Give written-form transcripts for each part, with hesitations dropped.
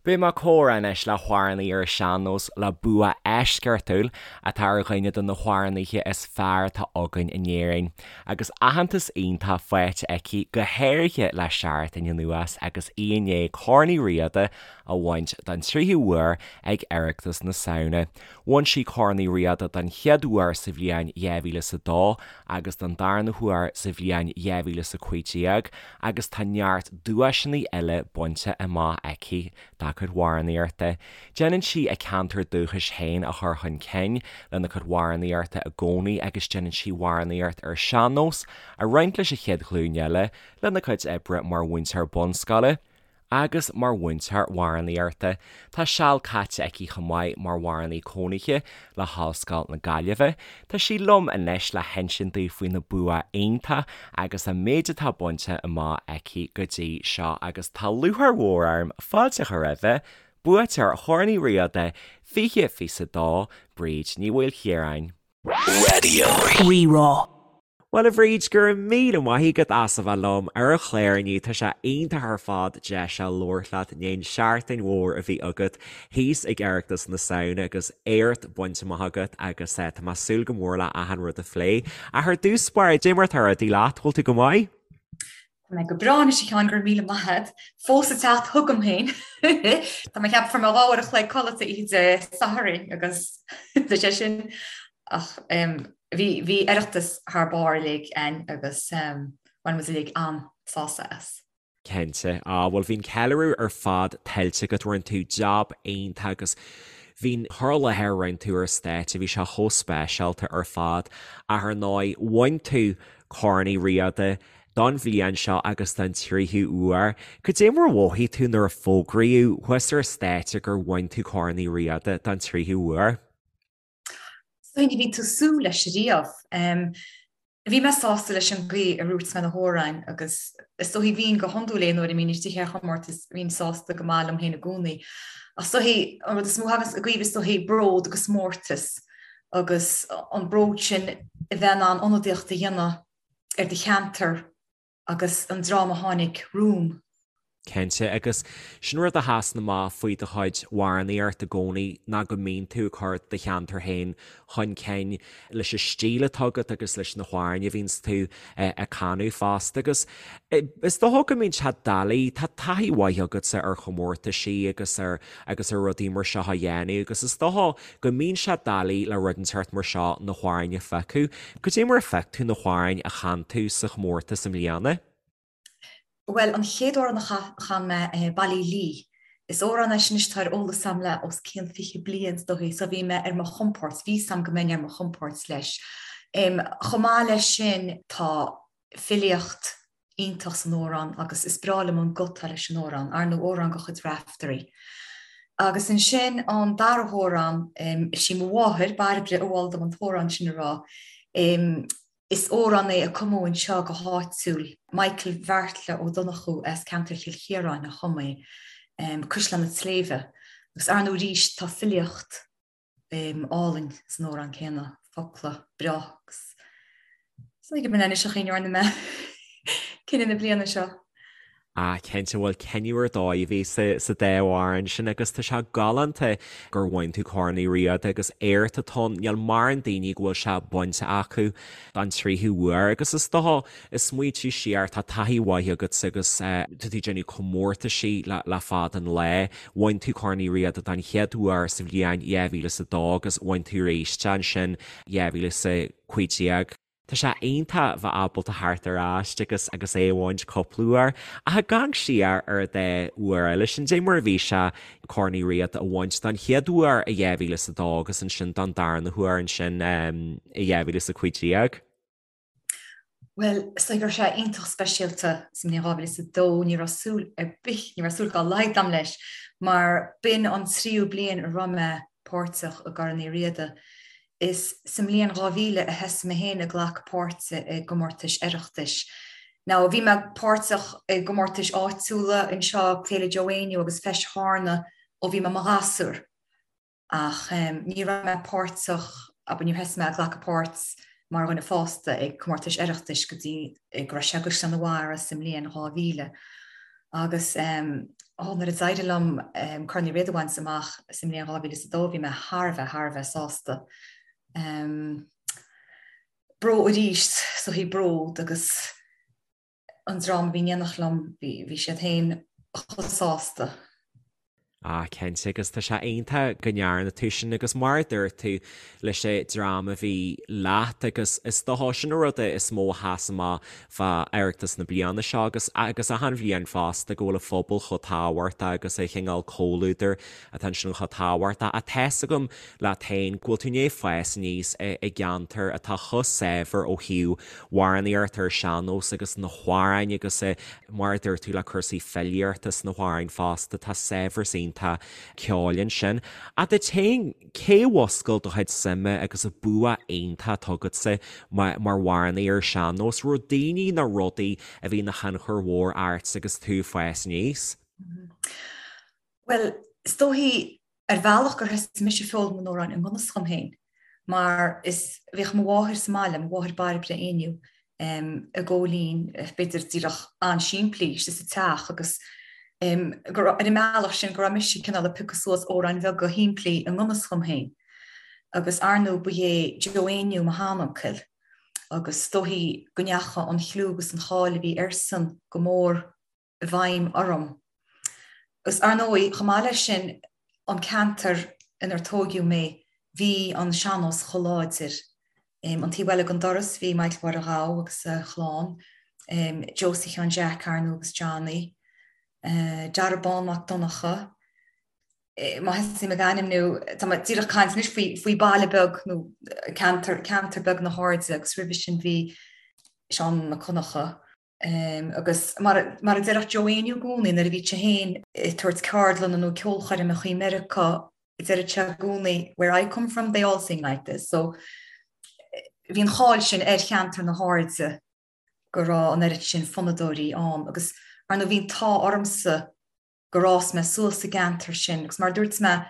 Beidh mé ag comhrá anois le hamhránaí ar an sean-nós le bua eisceachtúil atá ar dhuine de na hamhránaithe is fearr atá againn in Éirinn, agus aitheantas iontach faighte aici go háirithe le seachtain anuas agus í i ndiaidh Corn Uí Riada a bhaint don tríú huair ag Oireachtas na Samhna. Bhain sí Corn Uí Riada don chéad uair sa bhliain 2002 agus don darna huair sa bhliain 2015 agus tá neart duaiseanna eile bainte amach aici dá cuid amhránaíochta. Déanann sí a ceantar dúchais féin a chur chun cinn lena cuid amhránaíochta i gcónaí agus déanann sí amhránaíocht ar sean-nós a roinnt leis an chéad ghlúin eile lena cuid oibre mar mhúinteoir bunscoile. Agus mar mhúinteoir amhránaíochta, tá seal caite aici chomh maith mar amhránaí cónaithe le hOllscoil na Gaillimhe. Tá sí liom anois le hinsint daoibh faoina bua iontach agus an méid atá bainte amach aici go dtí seo agus tá lúcháir mhór orm fáilte a chur roimhe, buaiteoir Chorn Uí Riada 2022, Bríd Ní Mhaoilchiaráin. Raidió Rí-Rá. Bhuel a Bhríd, go raibh míle maith agat as a bheith liom ar an chlár inniu. Tá sé iontach ar fad deis a labhairt leat i ndiaidh an seachtain mhór a bhí agat thíos ag Oireachtas na Samhna agus éacht bainte amach agat agus tá mé ag súil go mór le achan rud a phlé. Ach ar dtús báire, cad é mar atá rudaí leat, bhfuil tú go maith? Tá mé go breá anois a Sheáin, go raibh míle maith agat. Fós ag teacht chugam féin. Tá mé ag ceapadh fuair mé 2 uair a chloig codlata oíche Dé Sathairn agus tá sé sin ach bhí bhí Oireachtas thar barr uilig againn agus bhain muid uilig an-sásamh as. Cinnte. Á, bhuel bhí an ceiliúradh ar fad tuillte agat, rinne tú jab iontach agus bhí an cur i láthair a rinne tú ar stáitse, bhí sé chomh speisialta ar fad. Ach ar ndóigh, bhain tú Corn Uí Riada don bhliain seo agus don tríú huair. Cad é mar a mhothaigh tú nuair a fógraíodh thuas ar stáitse gur bhain tú Corn Uí Riada don tríú huair? Is dóigh ní bhíonn tú ag súil leis riamh. Bhí mé sásta leis an gcaoi a dhúirt mé na hamhráin agus is dóigh bhínn go hiondúil aon uair a mbínn istigh ar chomórtas bhínn sásta go maith liom féin i gcónaí. Ach is dóigh an rud is mó a thagann i gcuimhne is dóigh bród agus mórtas agus an bród sin a bheith in ann ionadaíocht a dhéanamh ar do cheantar agus an dream a tháinig romham. Cinnte, agus sin rud a sheasann amach faoi do chuid amhránaíocht i gcónaí ná go mbíonn tú ag cur do cheantar féin chun cinn leis an stíl atá agat agus leis na hamhráin a bhíonns tú ag canadh fosta. Agus is dócha go mbíonn sé doiligh, tá taithí mhaith agatsa ar chomórtaisí agus ar agus ar rudaí mar seo a dhéanamh agus is dócha go mbíonn sé doiligh le rud inteacht mar seo na hamhráin a phiocadh. Cad é mar a phioc tú na hamhráin a chan tú sa chomórtas i mbliana? Bhuel, an chéad amhrán a chan mé, Ballylee. Is amhrán é sin anois atá ar eolas agam le os cionn 20 bliain is dóichí, so bhí mé ar mo chompord, bhí 's agam go mbeinn ar mo chompord leis. Chomh maith leis sin, tá filíocht iontach san amhrán agus is breá liom an guth atá leis an amhrán, ar ndóigh amhrán de chuid Raiftearaí. Agus ansin an dara hamhrán, is í mo mháthair, Bairbre, a mhol dom an t-amhrán sin a rá. Is amhrán é a cumadh anseo go háitiúil, Michael Bheartla Ó Donnchú as ceantar Chill Chiaráin a chum é, Cuisleán an tSléibhe. Agus ar ndóigh arís tá filíocht álainn san amhrán céanna, focla breá agus is dóigh gurb in é anois an chaoi a ndearna mé cinneadh na bliana seo. Ah, cinnte, bhuel cinneadh ar dóigh a bhí sa dá amhrán sin agus tá sé galánta gur bhain tú Corn Uí Riada agus éacht atá ann, níl mórán daoine go bhfuil sé bainte acu don tríú huair agus is dócha Ag smaointiú siar, tá taithí mhaith agat agus tá tú ag déanamh comórtaisí le fada an lá. Bhain tú Corn Uí Riada don chéad uair sa bhliain 2002 agus bhain tú arís é ansin 2015. Tá sé iontach bheith ábalta theacht ar ais agus agus é a bhaint cúpla uair. Ach ag amharc siar ar an dá uair eile sin, cad é mar a bhí sé Corn Uí Riada a bhaint don chéad uair i 2002 agus ansin don darna huair ansin i 2015? Bhuel, is dóigh go raibh sé iontach speisialta sa mbliain 2002, ní raibh súil ar bith, ní raibh súil dá laghad agam leis, mar b'in an tríú bliain a raibh mé páirteach i gCorn Uí Riada. Is sa mbliain 2000 a thosaigh mé féin ag glacadh páirte i gcomórtais Oireachtais. Now, bhí mé páirteach i gcomórtais áitiúla anseo, Féile Joe Éinniú agus Feis Charna ó bhí mé i mo ghasúr. Ach ní raibh mé páirteach, abair, níor thosaigh mé ag glacadh páirt mar dhuine fásta ag comórtais Oireachtais go dtí go raibh sé i gCaisleán an Bharraigh sa mbliain 2000. Agus ó nuair a d'éirigh liom Corn Uí Riada a bhaint amach sa mbliain 2002 bhí mé thar a bheith, thar a bheith sásta. Bród arís, is dóichí bród agus an dream a bhí in éineacht liom, bhí siad féin chomh sásta. Ah, cinnte, agus tá sé iontach go ndearna tú sin agus mar a dúirt tú leis an dream a bhí leat agus is dócha sin an rud is mó a sheas amach fá Oireachtas na bliana seo agus agus achan bhliain fosta go bhfuil an phobal chomh tábhachtach agus an chineál comhluadair atá ansin chomh tábhachtach. Ach tá's agam leat féin go bhfuil tú i ndiaidh fás aníos i gceantar atá chomh saibhir ó thaobh amhránaíocht ar sean-nós agus na hamhráin agus mar a dúirt tú le cúrsaí filíochta sna hamhráin fosta, tá saibhreas iontach ceoil ansin. Ach duit féin, cé a mhúscail do chuid suime agus an bua iontach atá agatsa mar amhránaí ar sean-nós? Raibh daoine nó rudaí a bhí ina thionchar mhór ort agus tú ag fás aníos? Bhuel, is dóichí Ar bhealach gur thosaigh mise ag foghlaim na n-amhrán i ngan fhios dhom féin, mar is bhíodh mo mháthair sa mbaile, mo mháthair Bairbre Éinniú, i gcóilín, b'fhéidir díreach an-simplí, istigh sa teach agus go raibh, ar an mbealach sin, go raibh mise cineál ag piocadh suas amhráin bheaga shimplí i ngan fhios dhom féin. Agus ar ndóigh ba é Joe Éinniú mo sheanuncail agus is dóichí go ndeachaigh an chliú agus an cháil a bhí airsean go mór i bhfeidhm orm. Agus ar ndóigh, chomh maith leis sin, an ceantar inar tóigeadh mé, bhí an sean-nós chomh láidir. An taobh eile den doras, bhí Michael Mháire Ghabha agus a chlann, Josie Sheáin Jeaic, ar ndóigh, agus Johnny, Dara Bán Mac Donncha, má thosaím ag ainmniú, tá mé díreach ag caint anois faoi, faoi baile beag nó ceantar, ceantar beag na hAirde agus roimhe sin bhí Seán Mac Conchadha. Agus mar a déarfadh Joe Éinniú i gcónaí nuair a bhíodh sé féin ag tabhairt ceardlanna nó ceolchoirmeacha i Meiriceá, deireadh sé i gcónaí 'where I come from they all sing like this'. So bhí an cháil sin ar cheantar na hAirde go raibh an oiread sin fonnadóirí ann agus ar ndóigh bhí an t-ádh ormsa gur fhás mé suas sa gceantar sin agus mar a dúirt mé,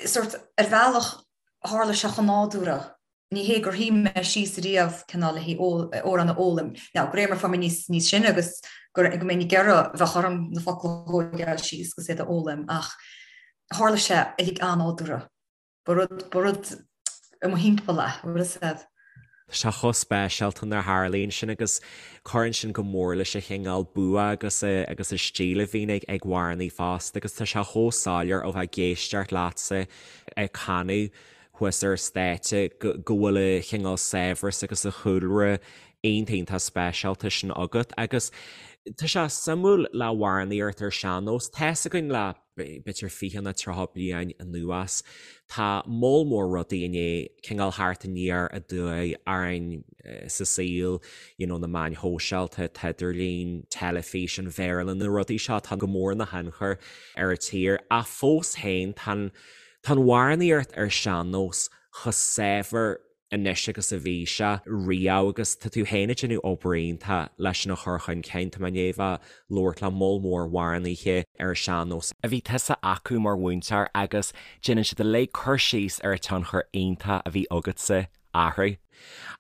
sórt, ar bhealach tharla sé chomh nádúrtha. Ní hé gur shuigh mé síos riamh cineál le haghaidh amhrán a fhoghlaim. Now, de réir mar a fuair mé níos níos sine agus go go mbeinn ag iarraidh bheadh orm na focla a thógáil síos agus iad a fhoghlaim ach tharla sé uilig an-nádúrtha. Ba rud, ba rud i mo thimpeall é, bhfuil fhios a'd. Tá sé chomh speisialta nuair a tharlaíonn sin agus cuireann sin go mór leis an chineál bua agus agus an stíl a bhíonn ag ag amhránaí fosta agus tá sé chomh soiléir ó bheith ag éisteacht leatsa ag canadh thuas ar stáitse go go bhfuil an chineál saibhreas agus an chúlra iontach iontach speisialta sin agat agus tá sé suimiúil le hamhránaíocht ar sean-nós. Tá's againn le b'fhéidir 20 nó 30 bliain anuas. Tá moll mór rudaí i ndiaidh cineál theacht aniar aduaidh orainn sa saol, you know, na meáin shóisialta, an t-idirlíon, teilifís, an Bhéarla, na rudaí seo atá go mór ina thionchar ar an tír. Ach fós féin, tá an, tá an amhránaíocht ar sean-nós chomh saibhir anois agus a bhí sé riamh agus tá tú féin ag déanamh obair iontach leis sin a chur chun cinn. Tá mé i ndiaidh bheith ag labhairt le moll mór amhránaithe ar an sean-nós, a bhí tusa acu mar mhúinteoir agus déanann siad uilig cur síos ar an tionchar iontach a bhí agatsa orthu.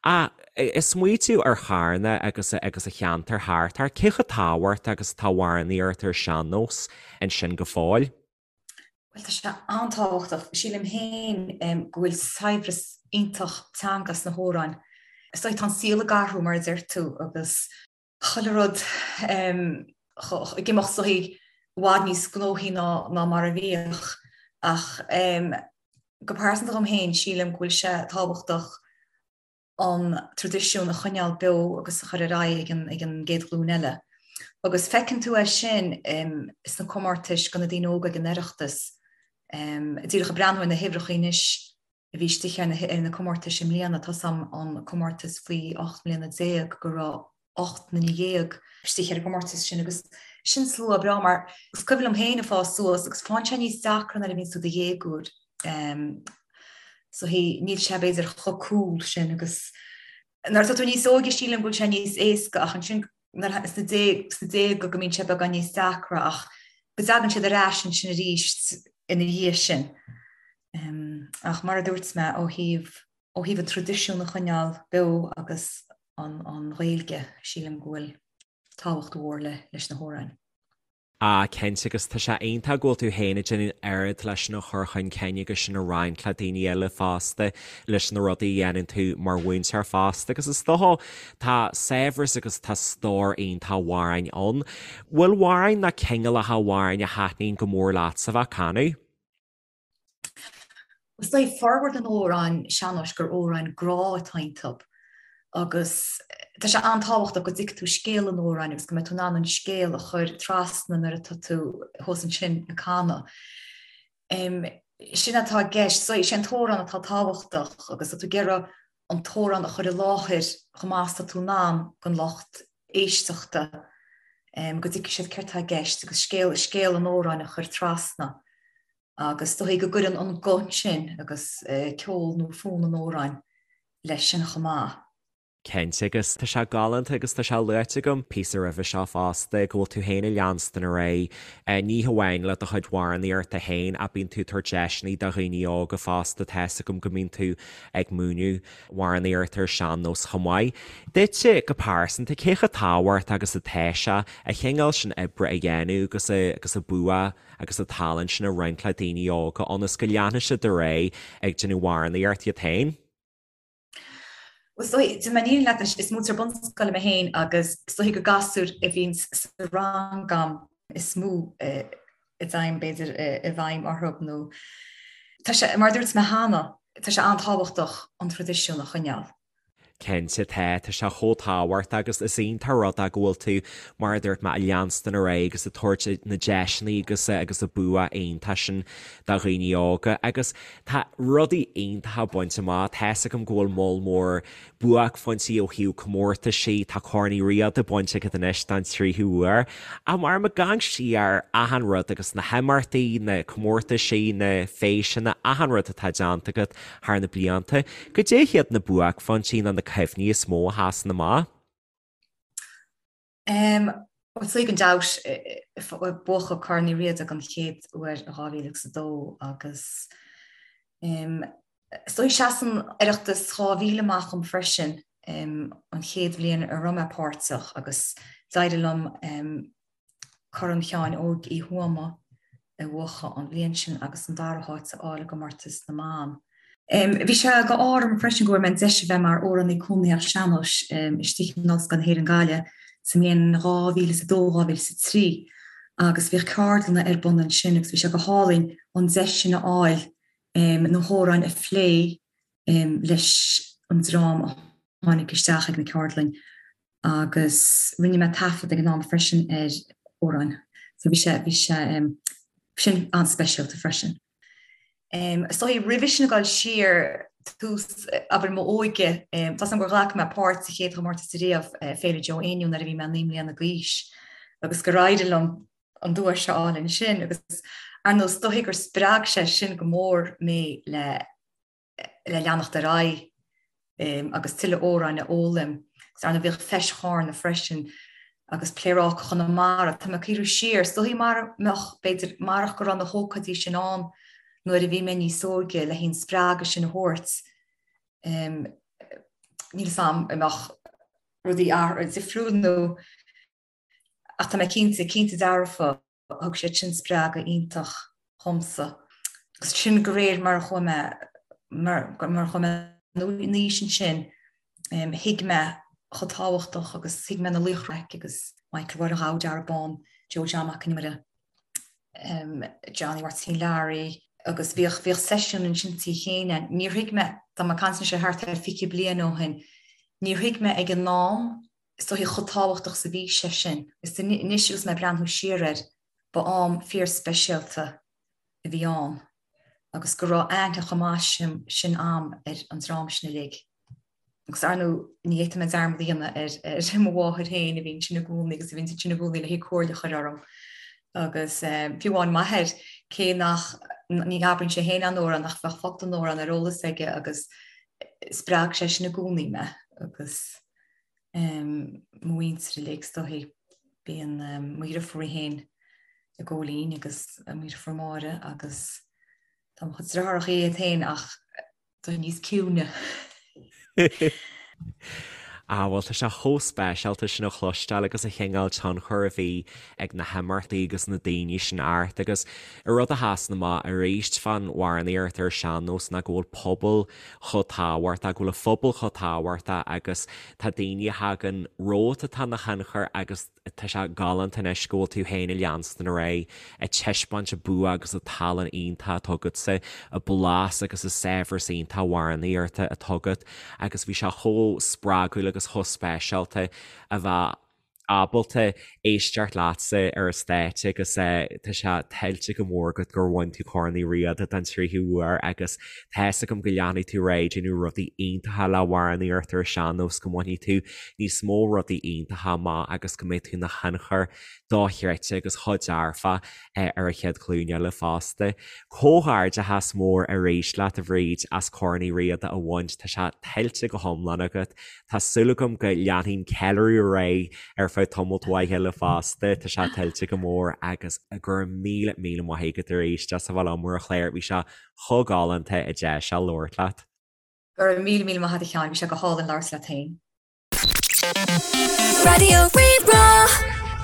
Ach ag smaoitiú ar Charna agus agus an cheantar thart air, cé chomh tábhachtach agus atá amhránaíocht ar sean-nós ansin go fóill? Bhuel, tá sé an-tábhachtach. Sílim féin go bhfuil saibhreas iontach teanga sna hamhráin. Is dóigh tá an saol ag athrú, mar a deir tú, agus chuile rud ag imeacht is dóichí i bhfad níos gnóthaí ná mar a bhíodh. Ach go pearsanta dhom féin, sílim go bhfuil sé tábhachtach an traidisiún a choinneáil beo agus a chur ar aghaidh ag an ag an gcéad ghlúin eile. Agus feiceann tú é sin sna comórtais do na daoine óga ag an Oireachtas. Díreach ag breathnú ar na huimhreacha anois a bhí istigh ar na ar na comórtais i mbliana, tá's a'm an comórtas faoi 18 mbliana go raibh 18 nduine istigh ar an gcomórtas sin agus sin slua breá mar is cuimhin liom féin ag fás suas agus faigheann sé níos deacra nuair a bhíonn tú i do dhéagóir. So he, níl sé b'fhéidir chomh cool sin agus nuair atá tú níos óige sílim go bhfuil sé níos éasca ach ansin nuair sna déaga go mbíonn sé beagán níos deacra ach go dtagann siad ar ais ansin arís ina dhiaidh sin. Ach mar a dúirt mé ó thaobh ó thaobh an traidisiún a choinneáil beo agus an Ghaeilge, sílim go bhfuil tábhacht mhór leis na hamhráin. Ah, cinnte, agus tá sé iontach go bhfuil tú féin ag déanamh an oiread leis sin a chur chun cinn agus sin a roinnt le daoine eile fosta, leis na rudaí a dhéanann tú mar mhúinteoir fosta, agus is dócha tá saibhreas agus tá stór iontach amhráin ann. Bhfuil amhráin nó cineálacha amhráin a thaitníonn go mór leatsa a bheith ag canadh? Is dóigh formhór na n-amhrán sean-nóis gur amhráin grá atá iontu agus tá sé an-tábhachtach go dtuigfidh tú scéal an amhráin agus go mbeidh tú in ann an scéal a chur trasna nuair atá tú thuas ansin ag canadh. Sin atá i gceist, so is é an t-amhrán atá tábhachtach agus tá tú ag iarraidh an t-amhrán a chur i láthair chomh maith is atá tú in ann don lucht éisteachta go dtuigfidh siad céard atá i gceist agus scéal scéal an amhráin a chur trasna. Agus is dóigh go gcuireann an guth sin agus ceol nó fonn an amhráin leis sin chomh maith. Cinnte, agus tá sé galánta agus tá sé luaite agam píosa roimhe seo fosta go bhfuil tú féin ag leanstan ar aghaidh, ní hamháin le do chuid amhránaíochta féin ach bíonn tú ag tabhairt deiseanna do dhaoine óga fosta, tá's agam go mbíonn tú ag múineadh amhránaíocht ar sean-nós chomh maith. Duitse go pearsanta, cé chomh tábhachtach agus atá sé an cineál sin oibre a dhéanamh agus agus an bua agus an tallann sin a roinnt le daoine óga ionas go leanfaidh siad ar aghaidh ag déanamh amhránaíocht iad féin. Bhuel, is dóigh, déanfaidh mé an fhírinne leat anois, is múinteoir bunscoile mé féin agus is dóigh gur gasúir a bhíonn sa rang agam is mó a dtéim, b'fhéidir, i bhfeidhm orthu nó tá sé, mar a dúirt mé cheana, tá sé an-tábhachtach an traidisiún a choinneáil. Cinnte tá, tá sé chomh tábhachtach agus is iontach an rud é go bhfuil tú, mar a dúirt mé, ag leanstan ar aghaidh agus ag tabhairt na deiseanna agus agus an bua iontach sin do dhaoine óga agus tá rudaí iontacha bainte amach, tá's agam go bhfuil moll mór buaicphointí ó thaobh comórtaisí, tá Corn Uí Riada bainte agat anois don tríú huair. Ach mar ag amharc siar ar achan rud agus na himeachtaí, na comórtaisí, na feiseanna, achan rud atá déanta agat thar na blianta, goidé hiad na buaicphointí nó na cuimhní is mó a sheasann amach? Bhuel, sea, gan dabht, buachan Corn Uí Riada den chéad uair i 2002 agus is dóigh seasann Oireachtas 2000 amach dom freisin, an chéad bhliain a raibh mé páirteach agus d'éirigh liom Corn Sheáin Óig Uí Thuama a bhuachan an bhliain sin agus an dara háit a fháil i gcomórtas na mban. Bhí sé go ádh orm freisin go bhfuair mé an deis a bheith mar amhránaí cónaitheach sean-nóis istigh in Ollscoil na hÉireann Gaillimh sa mbliain 2002, 2003 agus bhíodh ceardlanna ar bun ansin agus bhí sé go hálainn an deis sin a fháil na hamhráin a phlé leis an dream a tháinig isteach ag na ceardlainn. agus rinne mé taifead ag an am freisin ar amhráin so bhí sé, bhí sé sin an-speisialta freisin. Is dóigh roimhe sin ag dul siar tús, abair, m'óige, tá's agam gur ghlac mé páirt sa chéad chomórtas ariamh, Féile Joe Éinniú nuair a bhí mé 9 mbliana d'aois agus gur éirigh liom an duais a fháil ansin agus ar ndóigh is dóigh gur spreag sé sin go mór mé le le leanacht ar aghaidh agus tuilleadh amhráin a fhoghlaim. Agus ar ndóigh bhíodh Feis Chárna freisin agus Pléaráca Chonamara. Tá mé ag cuimhniú siar, is dóigh mara mbeadh, b'fhéidir, marach go raibh na hócáidí sin ann nuair a bhí mé níos óige le an spreagadh sin a thabhairt, níl 'fhios a'm an mbeadh rudaí difriúil nó ach tá mé cinnte, cinnte dearfa Thug siad sin spreagadh iontach dhomsa. Agus sin de réir mar a chuaigh mé, mar a chuaigh mé in aois ansin, thuig mé chomh tábhachtach agus thuig mé na laochra agus Michael Mháire Ghabha, Darragh Bán, Joe John Mac an Iomaire, Johnny Mháirtín Learaí agus bhíodh, bhíodh seisiún ansin Tigh Chéin. Níor thuig mé, tá mé ag caint anois ar thart ar 20 bliain ó shin, níor thuig mé ag an am is dóichí chomh tábhachtach is a bhí sé sin. Is anois agus mé ag breathnú siar air, ba am fíorspeisialta a bhí ann agus go raibh aithne chomh maith sin a'm ar an dream sin uilig. Agus ar ndóigh, ní fhéadfaidh mé dearmad a dhéanamh ar mo mháthair féin a bhí ansin i gcónaí agus a bhí ansin i gcónaí le comhairle a chur orm. Agus fiú amháin m'athair, cé nach, ní abraíonn sé féin aon amhrán ach bheadh focal den amhrán ar eolas aige agus spreag sé sin i gcónaí mé agus mo mhuintir uilig is dóichí. Bíonn mo dheirfiúr í féin i gCóilín agus mo dheirfiúr Máire agus tá mo chuid deartháireacha iad féin ach tá níos ciúine. Ah bhuel tá sé chomh speisialta sin a chloisteáil agus an chineál tionchair a bhí ag na himeachtaí agus na daoine sin ort agus an rud a sheasann amach arís fán amhránaíocht ar an sean-nós ná go bhfuil pobal chomh tábhachtach, go bhfuil an phobal chomh tábhachtach agus tá daoine a thagann romhat atá ina thionchar agus Tá sé galánta anois go bhfuil tú féin ag leanstan ar aghaidh, ag taispeáint an bua agus an tallann iontach atá agatsa, an blas agus an saibhreas iontach amhránaíochta atá agat agus bhí sé chomh spreagúil agus chomh speisialta a bheith ábalta éisteacht leatsa ar an stáitse agus tá sé tuillte go mór agat gur bhain tú Corn Uí Riada den tríú huair agus tá fhios agam go leanfaidh tú ar aghaidh ag déanamh rudaí iontacha le hamhránaíocht ar an sean-nós go mbainfidh tú níos mó rudaí iontacha amach agus go mbeidh tú ina thionchar dochreidte agus chomh dearfach ar an chéad ghlúin eile fosta. Comhghairdeachas mór arís leat a Bhríd as Corn Uí Riada a bhaint, tá sé tuillte go hiomlán agat. Tá súil agam go leanfaidh an ceiliúradh ar aghaidh ar feadh tamalt mhaith eile fosta, tá sé tuillte go mór agus go raibh míle míle maith agat arís as a bheith liom ar an chlár, bhí sé chomh galánta an deis seo labhairt leat. Go raibh míle míle maith agat a Sheáin, bhí sé go hálainn labhairt leat féin. Raidió Rí-Rá.